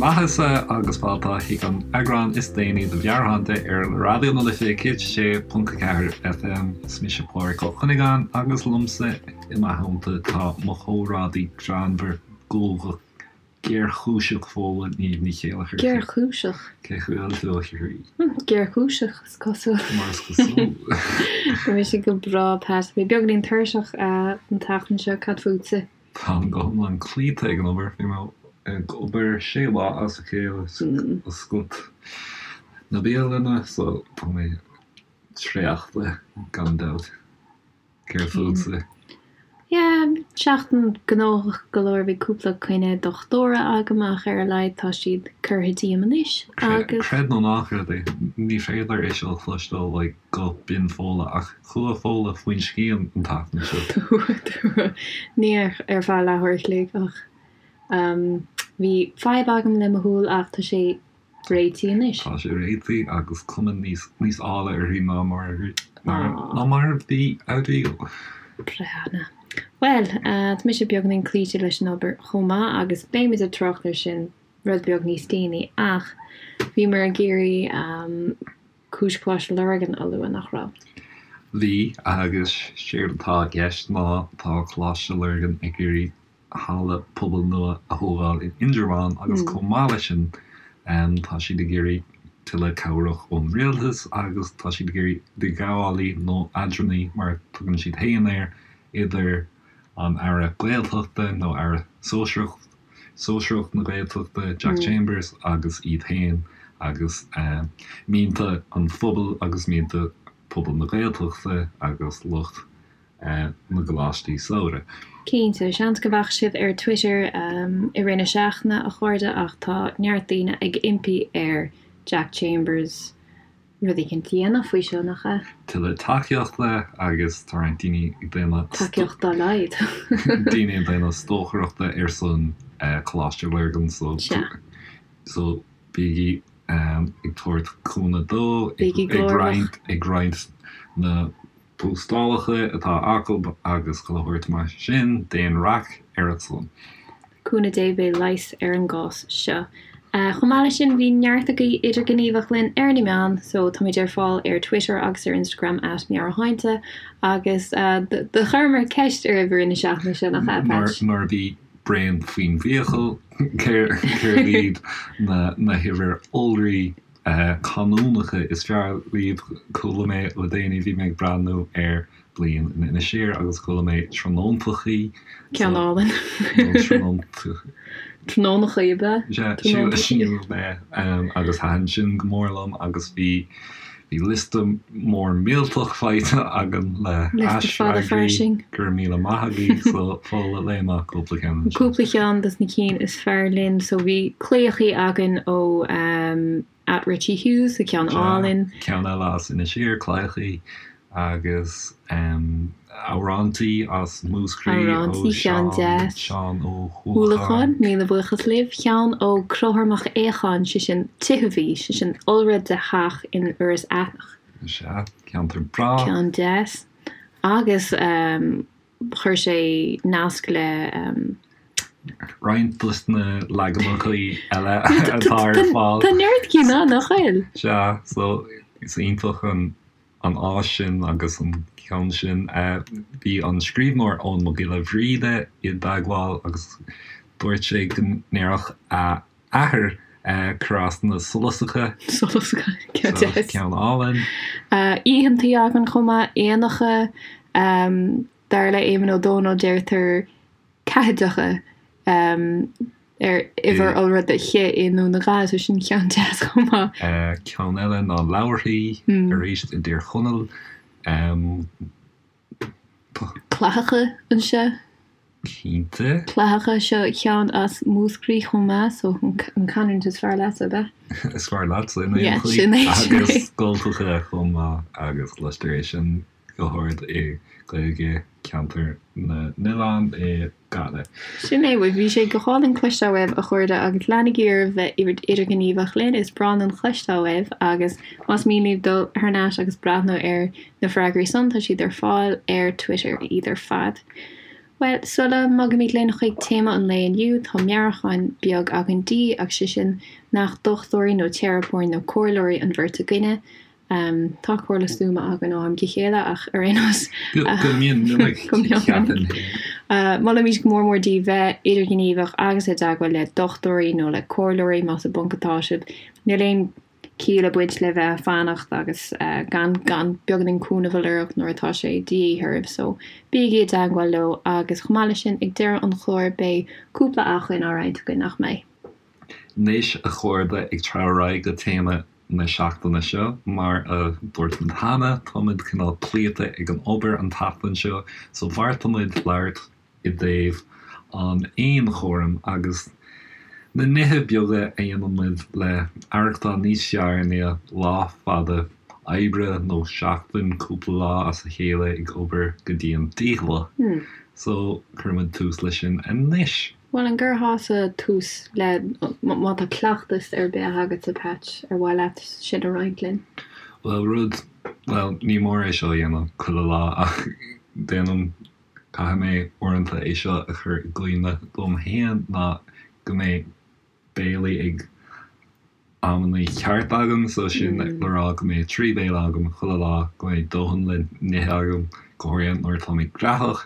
maitheasa agus fáilte chuig an eagrán is déanaí de Mheabhairshláinte ar Raidió na Life 106.4 FM. Is mise Pádraig Ó Cuinneagáin agus liomsa i mo theannta tá mo chomrádaí greannmhar guagach géarchúiseach Fódhla Niamh Ní Chéileachair. Géarchúiseach? Cén chaoi a bhfuil tú, a chroí? Géarchúiseach, is cosúil. Mar is cosúil. Tá mise go breá, Pat. Mé beagáinín tuirseach an tseachtain seo, cad fútsa? Táim go hiomlán cloíte ag an obair. Bhí mé ag obair sé lá as a chéile ag oscailt na bialainne so tá mé traochta gan dabht. Céard fútsa? Yeah, seachtain gnóthach go leor, bhí cúpla coinne dochtúra agam ach ar a laghad tá siad curtha díom anois agus. Creid nó ná creid é, ní féidir é seo a chloisteáil like guth binn Fódhla ach chuaigh Fódhla faoin scian an tseachtain seo. Ní ar feadh leathuair a chloig ach bhí fadhb agam le mo shúil ach tá sé réitithe anois. Tá sé réitithe agus cuma níos níos áille uirthi ná mar ná mar a bhí ariamh. Breá. Bhuel, tá mise beagáinín cloíte leis an obair chomh maith agus beimid ag trácht air sin rud beag níos déanaí ach bhíomar ag iarraidh cúis Choláiste Lurgan a lua, nach raibh? Bhí, agus séard atá i gceist ná tá Coláiste Lurgan ag iarraidh halla pobail nua a thógáil in Indreabhán agus chomh maith leis sin tá siad ag iarraidh tuilleadh cabhrach ón rialtas agus tá siad ag iarraidh idirghabhálaí nó eadránaí mar a tugann siad féin air idir an Aire Gaeltachta nó Aire Sóisearach Sóisearach na Gaeltachta Jack Chambers agus iad féin agus mianta an phobail agus mianta pobal na Gaeltachta agus lucht na gcoláistí samhraidh. Cinnte, seans go bhfaca sibh ar Twitter i rith na seachtaine, a chairde, ach tá neart daoine ag impí ar Jack Chambers rud éicint a dhéanamh faoi seo, nach ea? Tuilleadh tacaíochta agus tá roinnt daoine ag déanamh. Tacaíocht dá laghad. daoine ag déanamh stocaireachta ar son Coláiste Lurgan so so bígí ag tabhairt cúnamh dó, ag roinnt na postálacha atá acu agus chuile shórt mar sin, déan raic ar a son. Cúnamh Dé beidh leigheas ar an gcás seo. Chomh maith leis sin bhí neart agaibh idirghníomhach linn ar na meáin so táimid ar fáil ar Twitter agus ar Instagram at Meabhairshláinte agus do chuireamar ceist oraibh i rith na seachtaine seo nach ea, Patch? Nuair a bhí braon faoin bhfiacail, céard iad na huimhir iolraí canúnacha is fearr libh. Chuala mé le déanaí, bhí mé ag breathnú ar Bliain in Inis Oírr agus chuala mé tráthnóntachaí. Ceann álainn. Nó tráthnóntachaí. Tráthnónachaí ab ea? Sea, sílim é. Agus thaitin sin go mór liom agus bhí bhí liosta mór millteach faighte againn le haisfhreagraí. Go raibh míle maith agaibh. So, Fódhla, léigh amach cúpla ceann ansin. Cúpla ceann dos na cinn is fearr linn. So bhí claíochaí againn ó at Richie Hughes, so ceann álainn. Ceann eile as Inis Oírr, claíochaí agus amhrántaí as Múscraí ó ceann deas. Seán Ó hUallacháin. Míle buíochas libh. Ceann ó Conchúr Mac Aocháin, sé sin tithibh, sé sin iolra de theach in Iorras Aithneach. Sea, ceantar breá. Ceann deas. Agus chuir sé nasc le. Roinnt dos na leaganacha eile atá ar fáil. Tá neart cinn ann, nach bhfuil? Sea, so is iontach an an áis sin agus an ceann sin. Bhí an scríbhneoir Eoin Mac Giolla Bhríde i dteagmháil agus dúirt sé go ndéarfadh a athair crosanna solasacha. Solasacha, ceann deas. Ceann álainn. Oícheantaí againn chomh maith, éanacha, dar le Éamonn Ó Dónaill deirtear ceathaideacha ar uimhir iolra de chith i nDún na nGall, so sin ceann deas chomh maith. Ceann eile ná leabharthaí, arís i dTír Chonaill. Clathacha anseo. Cinnte. Clathacha, seo ceann as Múscraí chomh maith, so an canúint is fearr leatsa, ab ea? Is fearr leatsa in aon chaoi. Sin é, sin é. Agus scoltacha chomh maith agus cloistear é sin go hard i Gaeilge Cheantar na nOileán i Gaillimh. Sin é, bhuel bhí sé go hálainn cloisteáil uaibh a chairde agus leanaigí oraibh bheith idirghníomhach linn, is breá linn cloisteáil uaibh agus más mian libh dul thar n-ais agus breathnú ar na freagraí san tá siad ar fáil ar Twitter, iad ar fad. Bhuel, sula mbogaimid linn chuig téama an lae inniu, tá meabhrúchán beag againn daoibh, agus sé sin nach dochtúirí nó teiripeoirí nó comhairleoirí an bheirt againne. Tá comhairle stuama againn ó am go chéile, ach ar aon nós. Go mion minic, ceapaim féin. Molaimid go mór mór daoibh bheith idirghníomhach agus i dteagmháil le dochtúirí nó le comhairleoirí más i bponc atá sibh. Níl aon ciall ag baint le bheith ag fanacht agus gan gan beagáinín cúnamh a lorg nuair atá sé de dhíth oraibh so bígí i dteagmháil leo agus chomh maith leis sin ag deireadh an chláir beidh cúpla acmhainn á roinnt againn, nach mbeidh? Anois a chairde ag treabhadh ar aghaidh go téama na seachtaine seo, mar a dúirt muid cheana tá muid cineál cloíte ag an obair an tseachtain seo so bheartaigh muid labhairt i dtaobh an fhéinchúraim agus na nithe beaga a dhéanann muid le aireachtáil níos fearr i ndiaidh lá fada oibre nó seachtain, cúpla lá as a chéile ag obair go dian dícheallach. So, cuirfidh muid tús leis sin anois. Bhuel, an gcuirfeása tús le, má tá cleachtas ar bith agatsa, Patch, ar mhaith leat sin a roinnt linn? Bhuel, rud, bhuel, ní mór é seo a dhéanamh chuile lá ach déanaim Caithfidh mé uaireanta é seo a chur i gcuimhne dom féin ná go mbeidh béilí ag amannaí ceart agam, so sin le rá go mbeidh 3 béile agam chuile lá, go mbeidh dóthain le n-ithe agam, go háirithe nuair atá mé graitheach.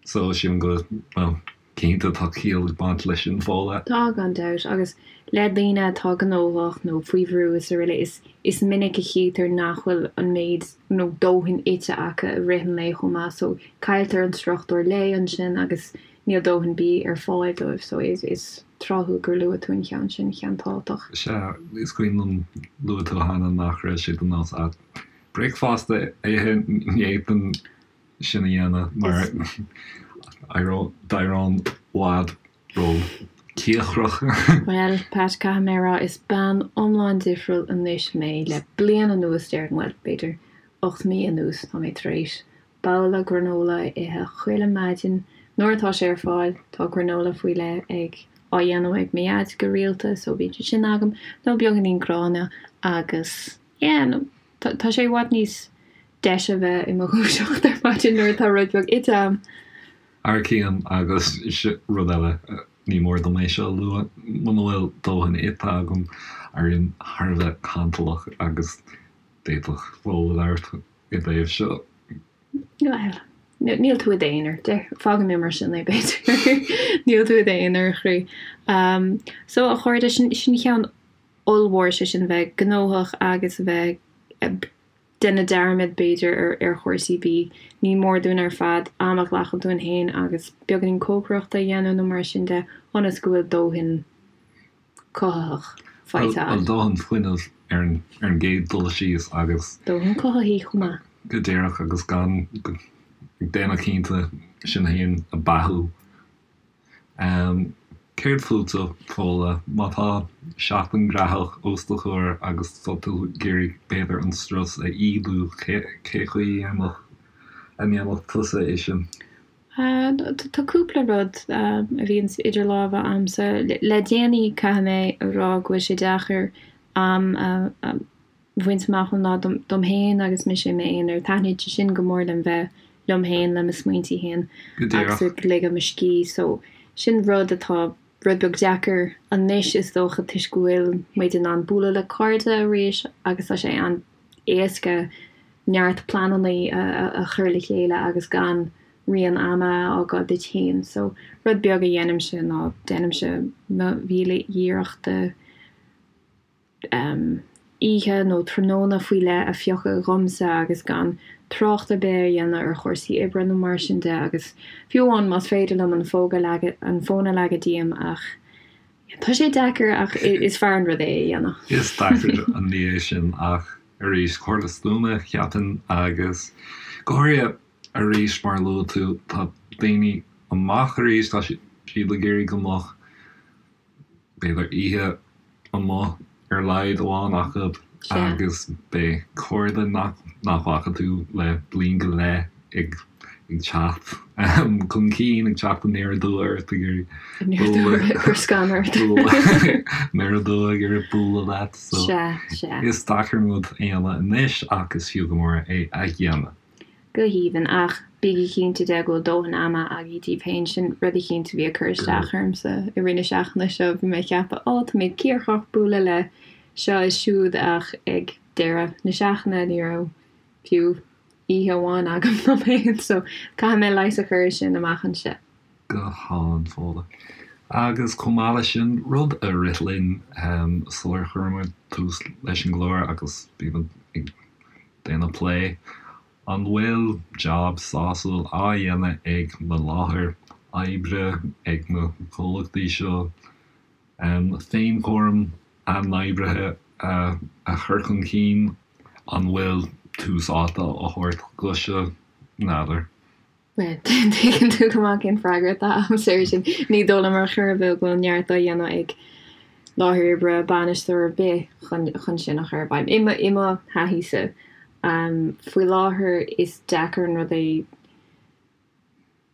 So sílim go, bhuel, Cinnte, tá ciall ag baint leis sin, Fódhla. Tá, gan dabht, agus le daoine atá gnóthach nó faoi bhrú is araile, is is minic a chítear nach bhfuil an méid nó dóthain ite acu i rith an lae chomh maith so cailltear an struchtúr lae ansin agus níl dóthain bídh ar fáil dóibh so is is tráthúil gur luaigh tú an cheann sin, ceann tábhachtach. Sea, is cuimhin liom, luaigh tú cheana nach raibh sé de nós agat bricfeasta a ithe, ní fhéadfainn sin a dhéanamh mar d'éireoinn i bhfad ró-chíocrach. Bhuel, Pat, caithfidh mé a rá, is bean iomlán difriúil anois mé. Le bliain anuas, déarfainn, bhuel, b'fhéidir 8 mí anuas, tá mé tar éis babhla granola a ithe chuile maidin nuair atá sé ar fáil. Tá granola faoi leith ag, á dhéanamh ag mo dhaid go rialta, so bíonn sé sin agam, nó beagáinín gráinne agus, yeah, nó tá sé i bhfad níos deise a bheith i mo dhúiseacht ar maidin nuair atá rud beag ite a'm. Thar cionn agus rud eile, ní mór dom é seo a lua, muna bhfuil dóthain ite agam, éirím thar a bheith cantalach agus d'fhéadfadh Fódhla labhairt i dtaobh seo. Bhuel, níl tú i d'aonar, fágfaidh mé mar sin é b'fhéidir. Níl tú i d'aonar, a chroí. So, a chairde, sin ceann ollmhór, sé sin bheith gnóthach agus a bheith ag déanamh dearmad, b'fhéidir, ar chúrsaí bídh. Ní mór dúinn ar fad am a ghlacadh dúinn féin agus beagáinín cócaireachta a dhéanamh nó mar sin de ionas go bhfuil dóthain cothaitheach faighte againn. Bhuel, dóthain fuinnimh ar an gcéad dul síos agus. Dóthain cothaithigh chomh maith. Go díreach agus gan ag déanamh cinnte sinn féin a beathú. Céard fútsa, Fódhla? Má tá seachtain graitheach os do chomhair agus tá tú ag iarraidh b'fhéidir an strus a ídiú, cé chaoi a ndéanfadh tusa é sin? Tá cúpla rud a bhíonns idir lámha a'msa. Le déanaí caithfidh mé a rá go bhfuil sé deacair am a bhaint amach ón lá dom féin agus mise i m'aonar. Taitníonn sé sin go mór liom bheith liom féin, le mo smaointí féin agus ag ligean mo scíth. So sin rud atá rud beag deacair anois is dócha toisc go bhfuil muid in ann bualadh le cairde arís agus tá sé an-éasca neart pleananna a chur le chéile agus gan rian ama a fhágáil duit féin. So rud beag a dhéanaimse ná déanaimse mo mhíle iarracht de oíche nó tráthnóna faoi leith a phiocadh dhomsa agus gan trácht ar bith a dhéanamh ar chúrsaí oibre nó mar sin de agus fiú amháin más féidir liom an fón a leagadh, an fón a leagadh díom ach tá sé deacair ach is fearr an rud é a dhéanamh. Is deacair an ní é sin ach arís, comhairle stuama, cheapfainn, agus go háirithe arís mar a luaigh tú, tá daoine amach arís, tá siad ag iarraidh go mbeadh b'fhéidir oíche amuigh ar a laghad amháin acu agus beidh cairde nach bhfaca tú le bliain go leith ag teacht chun cinn, ag teacht aniar aduaidh ort, ag iarraidh bualadh, aniar aduaidh ag iarraidh bualadh leat. So is deacair an rud a dhéanamh anois ach is fiú go mór é a dhéanamh. Go haoibhinn, ach bígí. bígí cinnte de go bhfuil dóthain ama agaibh daoibh féin. Sin rud eicínt a bhí ag cur isteach ormsa i rith na seachtaine seo. Bhí mé ag ceapadh, 'Ó, tá mé cíocrach bualadh le seo is siúd' ach ag deireadh na seachtaine ní raibh fiú oíche amháin agam dom féin. So caithfidh mé leigheas a chur ar sin amach anseo. Go hálainn, Fódhla. Agus chomh maith leis sin, rud a rith linn sular chuir muid tús leis an gclár agus bhí muid ag déanamh plé, An bhfuil jab sásúil á dhéanamh ag na láthair oibre, ag na comhlachtaí seo, féinchúram a n-oibrithe a chur chun cinn? An bhfuil tús áite á thabhairt dó seo? N'fheadar. Bhuel, tuigeann tú go maith cén freagra atá agamsa air sin. Ní dóigh liom ar chor ar bith go bhfuil neart á dhéanamh ag láthair oibre, bainisteoir ar bith chun sin a chur i bhfeidhm. I mo thaithíse, faoi láthair is deacair an rud é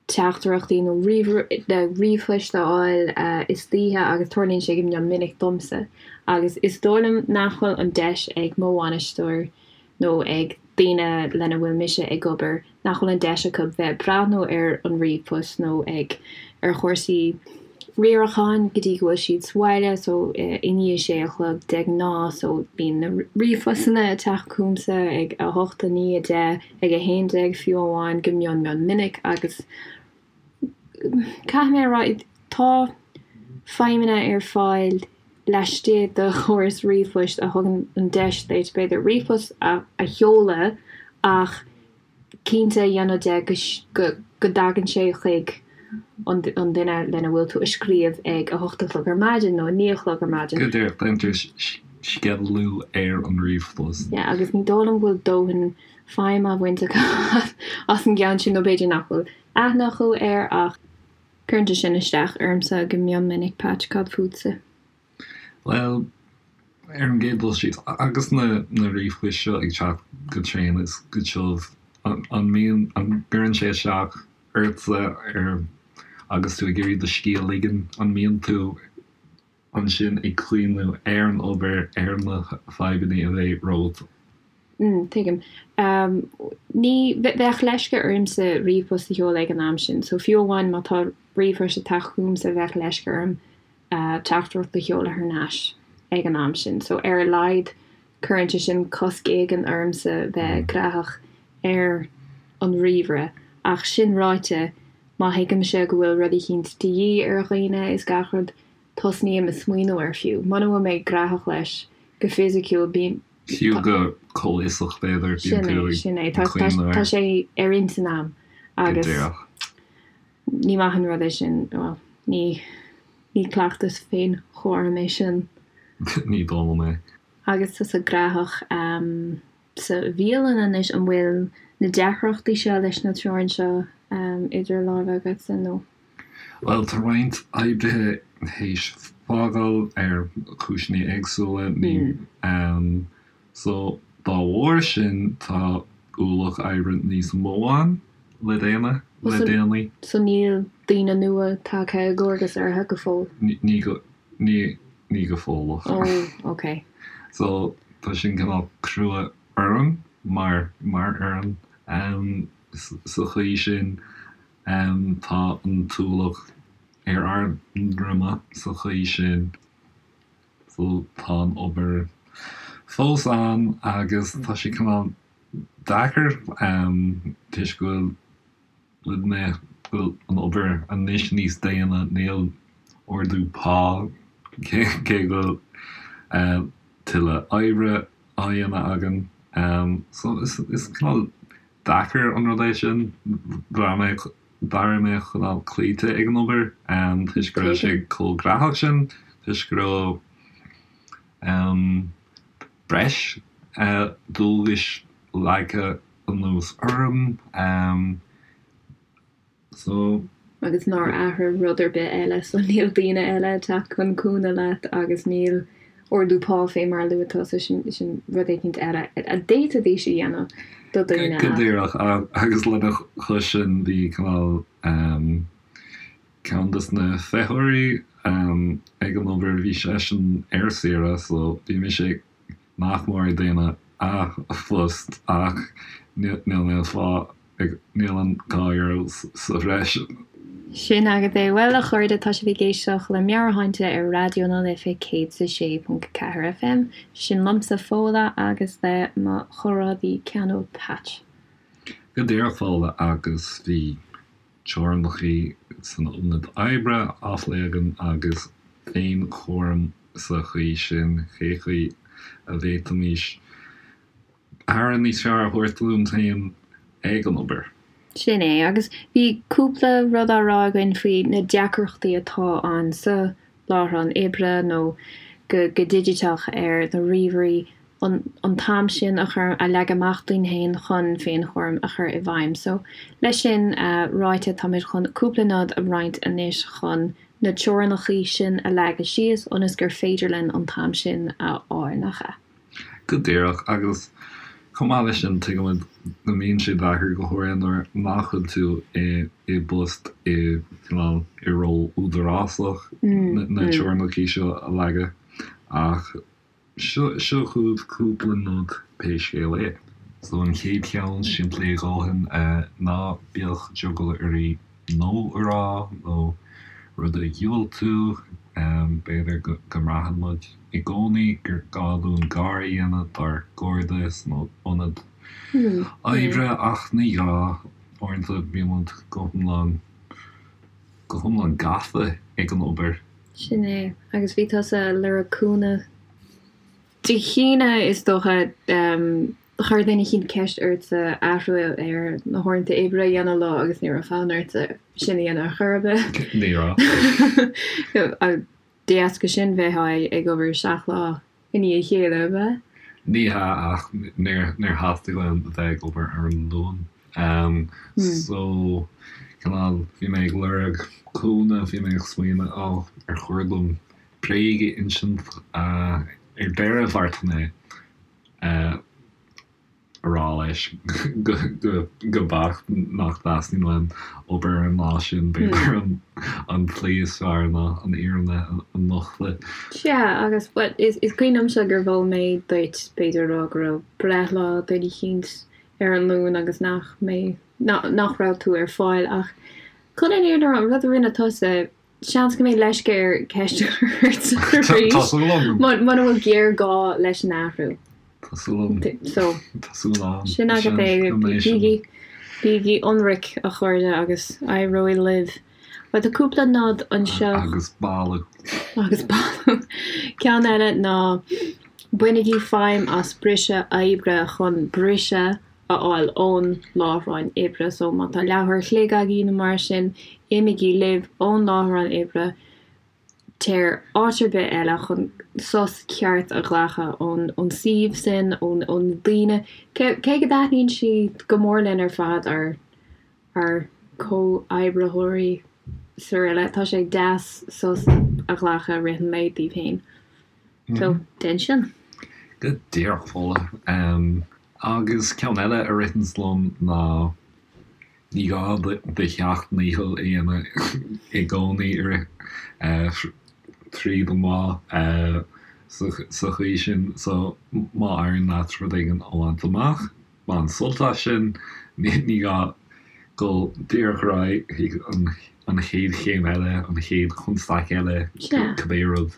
teachtaireachtaí nó ríomhphoist a fháil istoíche agus tarlaíonn sé go mion minic domsa agus is dóigh liom nach bhfuil an deis ag mo bhainisteoir nó ag daoine lena bhfuil mise ag obair nach bhfuil an deis acu bheith ag breathnú ar an ríomhphost nó ag ar chúrsaí riaracháin go dtí go bhfuil siad sa bhaile so i ndiaidh sé a chlog de ghnáth so bíonn na ríomhphostanna ag teacht chugamsa ag 8, 9, 10, ag 11 fiú amháin go mion mion minic agus Caithfidh mé a rá, tá feidhmeanna ar fáil laistigh de chóras ríomhphoist a thugann an deis duit, b'fhéidir, ríomhphost a sheoladh ach cinnte a dhéanamh de go dtagann sé chuig an duine lena bhfuil tú ag scríobh ag 8 a chlog ar maidin nó 9 a chlog ar maidin. Go díreach, déantar sceidealú ar an ríomhphost. Yeah, agus ní dóigh liom go bhfuil dóthain feidhm á bhaint acu as an gceann sin nó b'fhéidir nach bhfuil aithne acu air ach cuireann sé sin isteach ormsa go mion minic, Patch, cad fútsa? Bhuel, ar an gcéad dul síos, agus na na ríomhphoist seo ag teacht go tréan is go tiubh, an mbíonn, an gcuireann sé isteach ortsa ar, agus tú ag iarraidh do scíth a ligean, an mbíonn tú ansin ag cuimhniú ar an obair, ar na fadhbanna a bheidh romhat. Mm, tuigim. Ní, bheadh leisce ormsa ríomhphost a sheoladh ag an am sin, so fiú amháin má tá ríomhphost ag teacht chugamsa bheadh leisce orm teachtaireacht a sheoladh thar n-ais ag an am sin. So ar a laghad cuireann sé sin cosc éigin ormsa bheith graitheach ar an ríomhaire. Ach sin ráite, má thuigimse go bhfuil rud eicínt de dhíth ar dhaoine is gach rud, tosnaím ag smaoineamh air fiú muna bhfuil mé graitheach leis go fisiciúil, bím. Fiú go comhfhiosach b'fhéidir, bíonn tú ag Sin é, cuimhneamh air. Tá sé ar intinn a'm agus ní maith an rud é sin, bhuel, ní ní cleachtas féinchúraim é sin. Ní dóigh liom é. Agus tusa graitheach sa bhialann anois, an bhfuil na deacrachtaí seo leis na treoir seo idir lámha agatsa nó? Bhuel, tá roinnt oibrithe théis fágáil ar chúiseanna éagsúla, ní, so dá bharr sin tá ualach oibre níos mó ann le déanamh le déanaí. So níl daoine nua tagtha i gcomharbas orthu go fóill? Ní go, ní, ní go fóilleach. Oh, ok. So tá sin cineál crua orm mar, mar fhoireann sa chaoi sin. Tá an t-ualach ar ár ndroim sa chaoi sin. So tá an obair fós ann agus tá sé cineál deacair toisc go bhfuil na, go bhfuil an obair anois níos déine, níl ardú pá cé go bhfuil tuilleadh oibre á dhéanamh againn. So is cineál deacair an rud é sin. D'éirigh mé cineál cloíte ag an obair toisc go raibh sé chomh graitheach sin, toisc go raibh breis dualgais leagtha anuas orm. So. Agus nár athraigh rud ar bith eile, so níl daoine eile ag teacht chun cúnamh leat agus níl ardú pá fé mar a luaigh tusa, sin, sin rud éicint eile a d'fhéadfaidís a dhéanamh do dhaoine Go díreach, agus lena chois sin bhí cineál ceann des na feitheoirí ag an obair, bhí seisean ar saoire so bhí mise nach mór ag déanamh a phost ach níl mé ag fáil. Níl an €2 sa bhreis. Sin agat é. Bhuel, a chairde, tá sibh ag éisteacht le Meabhairshláinte ar Raidió na Life 106.4 FM. Sin liomsa, Fódhla, agus le mo chomrádaí ceanúil Patch. Go díreach, Fódhla, agus bhí teorainneacha san ionad oibre á phlé againn agus féinchúram sa chaoi sin, cé chaoi a bhféadfaimis aire níos fearr a thabhairt dúinn féin ag an obair. Sin é, agus bhí cúpla rud á rá againn faoi na deacrachtaí atá ann sa láithreán oibre nó go digiteach ar na ríomhairí, an t-am sin a chur, a leagadh amach dúinn féin chun féinchúram a chur i bhfeidhm. So, leis sin ráite, táimid chun cúpla nod a roinnt anois chun na teorainneacha sin a leagadh síos ionas gur féidir linn an t-am sin a fháil, nach ea? Go díreach, agus chomh maith leis sin, tuigimid go mbíonn sé deacair, go háirithe nuair nach bhfuil tú i i bpost i cineál i ról údarásach, na teorainneacha seo a leagadh. Ach seo seo chugaibh cúpla nod pé scéal é. So an chéad cheann, simplí a dhóthain, ná bíodh drogall oraibh no a rá nó rud a dhiúltú. B'fhéidir go mbraitheann muid i gcónaí gur gá dúinn gar a dhéanamh dár gcairde san ionad oibre ach ní gá. Uaireanta bíonn muid go hiomlán, go hiomlán gafa ag an obair. Sin é. Agus bhí tusa ag lorg cúnamh Dé hAoine, is dócha. Chuir duine eicínt ceist ortsa athrú ar na huaireanta oibre a dhéanamh leo agus ní raibh fonn ortsa sin a dhéanamh ar chor ar bith. Ní raibh. De dheasca sin bheifeá ag obair 7 lá i ndiaidh a chéile, ab ea? Ní hea, ach níor theastaigh uaim a bheith ag obair ar an Luan. So, cineál, bhí mé ag lorg cúnamh, bhí mé ag smaoineamh, oh, ar chóir dom bréag a insint? Ar deireadh, bheartaigh mé a rá leis go beacht nach dteastaíonn uaim obair ar an lá sin, b'fhéidir an tslí is fearr ná an fhírinne a nochtadh. Sea, agus, bhuel, is cuimhin liomsa gur mhol mé duit, b'fhéidir, a rá go raibh breithlá duine eicínt ar an Luan agus nach mbeidh, nach raibh tú ar fáil ach chun an fhírinne a rá, an rud a rinne tusa, Seans go mbeidh leisce air ceist a chur ort arís Tá súil agam. muna bhfuil géarghá leis an athrú. Tá súil agam. So, Tá súil agam. sin agat é. Go mbeidh sin. Bígí, bígí ionraic, a chairde, agus éireoidh libh. Bhuel, tá cúpla nod anseo. Agus boladh. Agus boladh. Ceann eile ná bainigí feidhm as briseadh oibre chun briseadh a fháil ón láithreán oibre. So má tá leathuair a chloig agaibh nó mar sin, imígí libh ón láithreán oibre, téir áit ar bith eile chun sos ceart a ghlacadh ón ón suíomh sin, ón ó na daoine. Cé cé go dtaitníonn siad go mór linn ar fad, ár ár comhoibritheoirí saraile, tá sé deas sos a ghlacadh i rith an lae daoibh féin. So, déan sin. Go díreach, Fódhla. Agus ceann eile a ritheanns liom ná ní gá do sheacht ndícheall a dhéanamh i gcónaí i rith tríd an lá sa chaoi sin. So má éiríonn leat rud éigin a bhaint amach, bain sult as sin. Ní gá dul díreach ar aghaidh chuig an chéad chéim eile, an chéad chonstaic eile, cibé rud,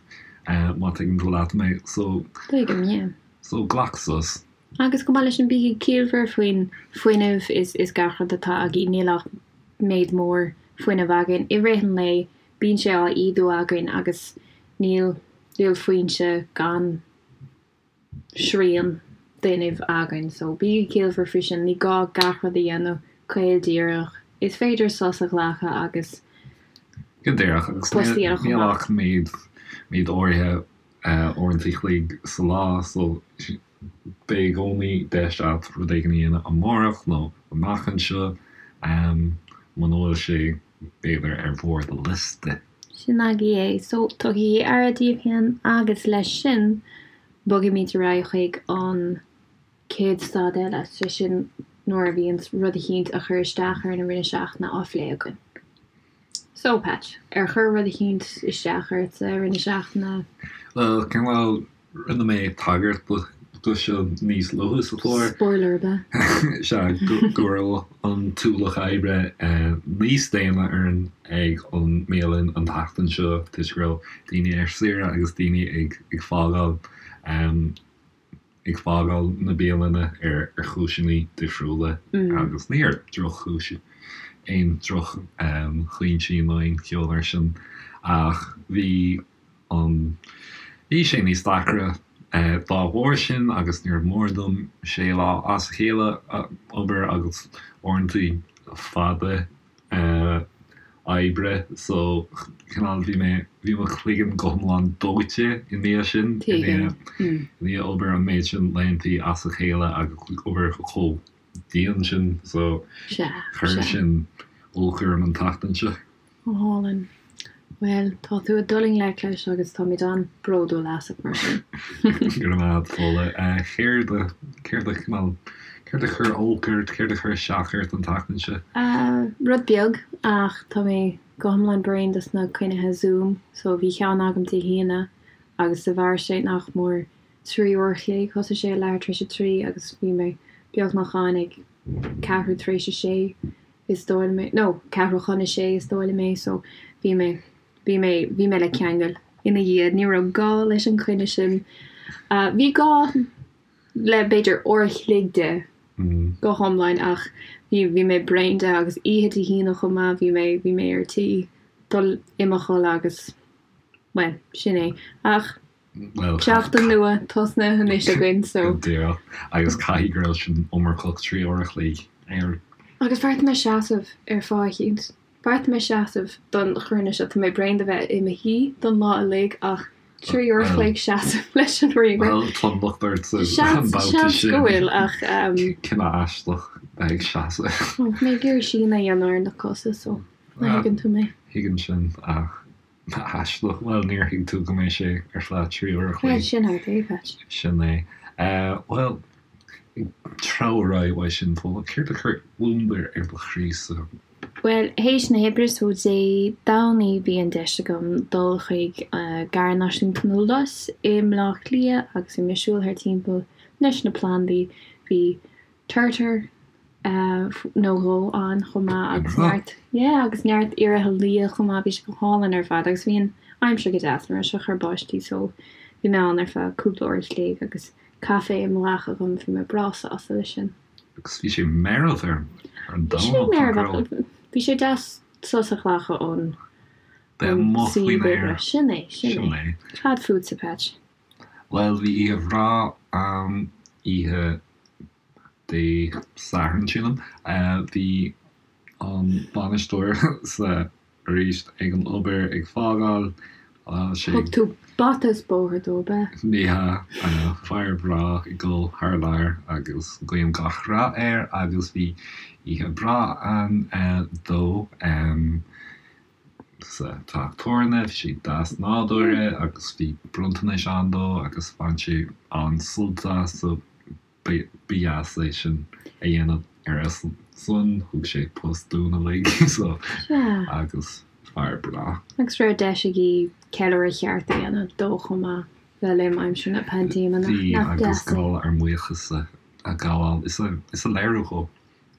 má tuigeann tú leat mé. So. Tuigim, yeah. So glac sos. Agus chomh maith leis sin, bígí ciallmhar faoin fuinneamh is gach rud atá agaibh. Níl ach méid mór fuinnimh againn i rith an lae, bíonn sé á ídiú againn agus níl níl foinse gan srian d'fhuinneamh againn. So bígí ciallmhar faoi sin, ní gá gach rud a dhéanamh caol díreach. Is féidir sos a ghlacadh agus Go díreach, agus post a dhéanamh chomh níl maith. ach méid méid áirithe uaireanta a chloig sa lá so beidh i gcónaí deis agat rud éigin a dhéanamh amárach nó amach anseo muna bhfuil sé b'fhéidir ar bharr do liosta. Sin agaibh é. So tugaigí aire daoibh féin agus leis sin bogaimid ar aghaidh chuig an chéad stad eile, sé sin nuair a bhíonns rud eicínt a chuir isteach orainn i rith na seachtaine á phlé againn. So, Patch, ar chuir rud eicínt isteach ortsa i rith na seachtaine? Bhuel, cineál, rinne mé tagairt do. do seo níos luaithe sa chlár. Spoiler ab ea? Sea, go raibh an t-ualach oibre níos déine orainn ag an mbialann an tseachtain seo toisc go raibh daoine ar saoire agus daoine ag fágáil ag fágáil na bialainne ar chúiseanna difriúla agus ní ar droch-chúis, aon droch-chúinsí nó aon cheo mar sin ach bhí an bhí sé níos deacra dá bharr sin agus níor mhór dom sé lá as a chéile a obair agus uaireanta fada oibre so cineál bhí mé bhí mo chloigeann go hiomlán dóite i ndiaidh sin i ndiaidh obair an méid sin laethanta as a chéile agus obair chomh dian sin so chuir sin olc orm an tseachtain seo. Go hálainn. Bhuel, tá tú ag dul i ngleic leis agus táimid an-bhródúil asat mar sin. Go raibh maith agat, Fódhla. Céard a, céard a, cineál, céard a chuir olc ort, céard a chuir isteach ort an tseachtain seo? Rud beag, ach tá mé go hiomlán bréan dos na cruinnithe Zoom, so bhí ceann agam Dé hAoine agus do mhair sé nach mór 3 uair a chloig, thosaigh sé ag leathuair tar éis a 3 agus bhí mé beagnach ann ag ceathrú tar éis a sé. is dóigh liom é, nó ceathrú chun a sé is dóigh liom é, so bhí mé, bhí mé, bhí mé le ceangal ina dhiaidh, ní raibh gá leis an choinne sin. Bhí gá le b'fhéidir uair a chloig de go hiomlán ach bhí, bhí mé bréan de agus oíche Dé hAoine chomh maith, bhí mé, bhí mé ar tí dul i mo chodladh agus, bhuel, sin é. Ach. Bhuel, Seachtain nua tosnaithe anois againn so. Go díreach. Agus caithfidh go raibh sin iomarcach, 3 uair a chloig ar. Agus bheartaigh mé seasamh ar fáth eicínt. Bheartaigh mé seasamh don chruinniú seo. Tá mé bréan de bheith i mo shuí don lá uilig ach 3 uair a chloig seasamh leis an ríomhaire. Bhuel, tá an locht ortsa an Seans, babhta seans sin. go bhfuil ach. Cinneadh aisteach bheith ag seasamh. Bhí mé ag iarraidh síneadh a dhéanamh ar na cosa so má thuigeann tú mé. Thuigim sin ach. Aisteach. Bhuel, níor thuig tú go mbeidh sé ar feadh 3 uair a Bhuel, chloig. sin agat é, Patch. Sin é. Bhuel, ag treabhadh ar aghaidh uaidh sin, Fódhla, céard a chuir gliondar ar do chroí-sa? Bhuel, théis na hoibre, so Dé Domhnaigh, bhí an deis agam dul chuig Garraí Náisiúnta na Lus i mBleá Cliath agus bhí mé ag siúl thar timpeall leis na plandaí. Bhí turtar nó dhó ann chomh maith agus neart, yeah, agus neart ioraithe liath chomh maith, bhí sé go hálainn ar fad agus bhí an aimsir go deas, ní raibh sé ag cur báistí so bhí mé ann ar feadh cúpla uair a chloig agus caife i mo ghlac agam, bhí mé breá sásta leis sin. Agus bhí sé meirbh ar an Bhí sé Domhnach, nach meirbh ach raibh? bhí sé deas sos a ghlacadh ón Bheith amuigh suíomh faoin oibre. aer. Sin é, sin Sin é. é. Cad fútsa, Patch? Bhuel, bhí oíche bhreá ann, oíche Dé Sathairn, sílim. Bhí an bainisteoir sa arís ag an obair ag fágáil. Sé. Thug tú bata is bóthar dó, ab ea? Ní hea, fear breá ag dul thar lear agus guím gach rath air agus bhí oíche bhreá ann dó sa teach tabhairne. Bhí sé deas nádúrtha agus bhí bronntanais ann dó agus bhain sé an-sult as so Ba dheas é sin a dhéanamh ar a son, thug sé post dúinn uilig so agus fear breá. Agus raibh deis agaibh ceiliúradh ceart a dhéanamh dó chomh maith le linn aimsir na paindéime, nach Bhí, deas agus é? gá ár mbuíochas a ghabháil is a léiriú dhó.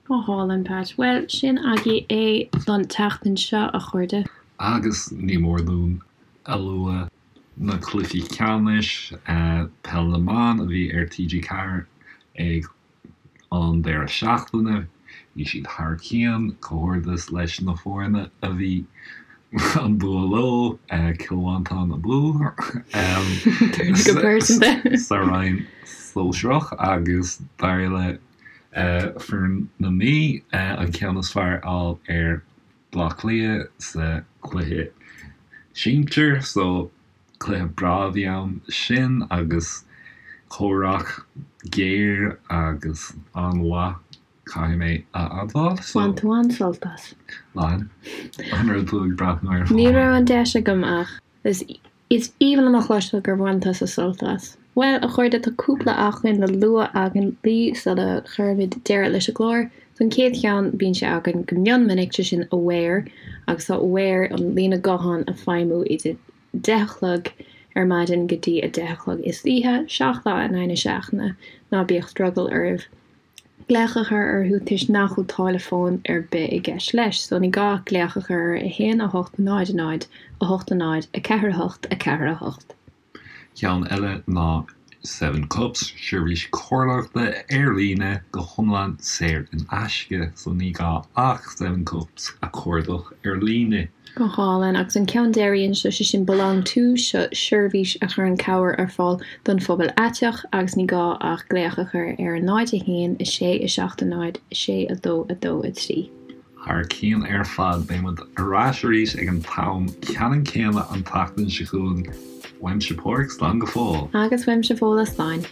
Go hálainn, Pat. Bhuel, sin agaibh é don tseachtain seo, a chairde. Agus ní mór dúinn a lua Na cluichí ceannais Peil na mBan a bhí ar TG4 ag an deireadh seachtaine, bhí siad thar cionn, comhghairdeas leis na foirne a bhí an bua leo, Cill Mhantáin abú Go pearsanta. sa roinn sóisearach agus d'éirigh le foireann na Mí an ceann is fearr a fháil ar Bleá Cliath sa chluiche sinsir so cluiche breá a bhí ann sin agus comhrac géar agus an-mhaith caithfidh mé a admháil so. Bhain tú an-sult as. Bhain. An raibh tú ag breathnú air Ní raibh an deis agam ach is Is aoibhinn liom a chloisteáil gur bhain tusa sult as. Bhuel, a chairde, tá cúpla acmhainn le lua againn libh sula gcuirimid deireadh leis an gclár. So an chéad cheann, bíonn sé againn go mion minic, sé sin Aware, agus tá Aware, an líne gutháin ag feidhmiú idir deich a chlog ar maidin go dtí 10 a chlog istoíche, 7 lá in aghaidh na seachtaine. Ná bíodh drogall oraibh glaoch a chur orthu toisc nach bhfuil táille fóin ar bith i gceist leis, so ní gá ach glaoch a chur ar 1 8 0 0 8 0 4 8 4 8. Ceann eile ná Seven Cups, seirbhís comhairleoireachta ar líne go hiomlán saor in aisce, so ní gá ach Seven Cups a chuardach ar líne. Go hálainn. Agus an ceann deiridh anseo, sé sin Belong To, seo seirbhís a chuireann cabhair ar fáil don phobal aiteach agus ní gá ach glaoch a chur ar 0 1 6 7 0 6 2 2 3. Thar cionn ar fad, beidh muid ar ais arís ag an t-am ceannann céanna an tseachtain seo chugainn. Uaimse Pádraig, slán go fóill. Agus uaimse Fódhla, slán.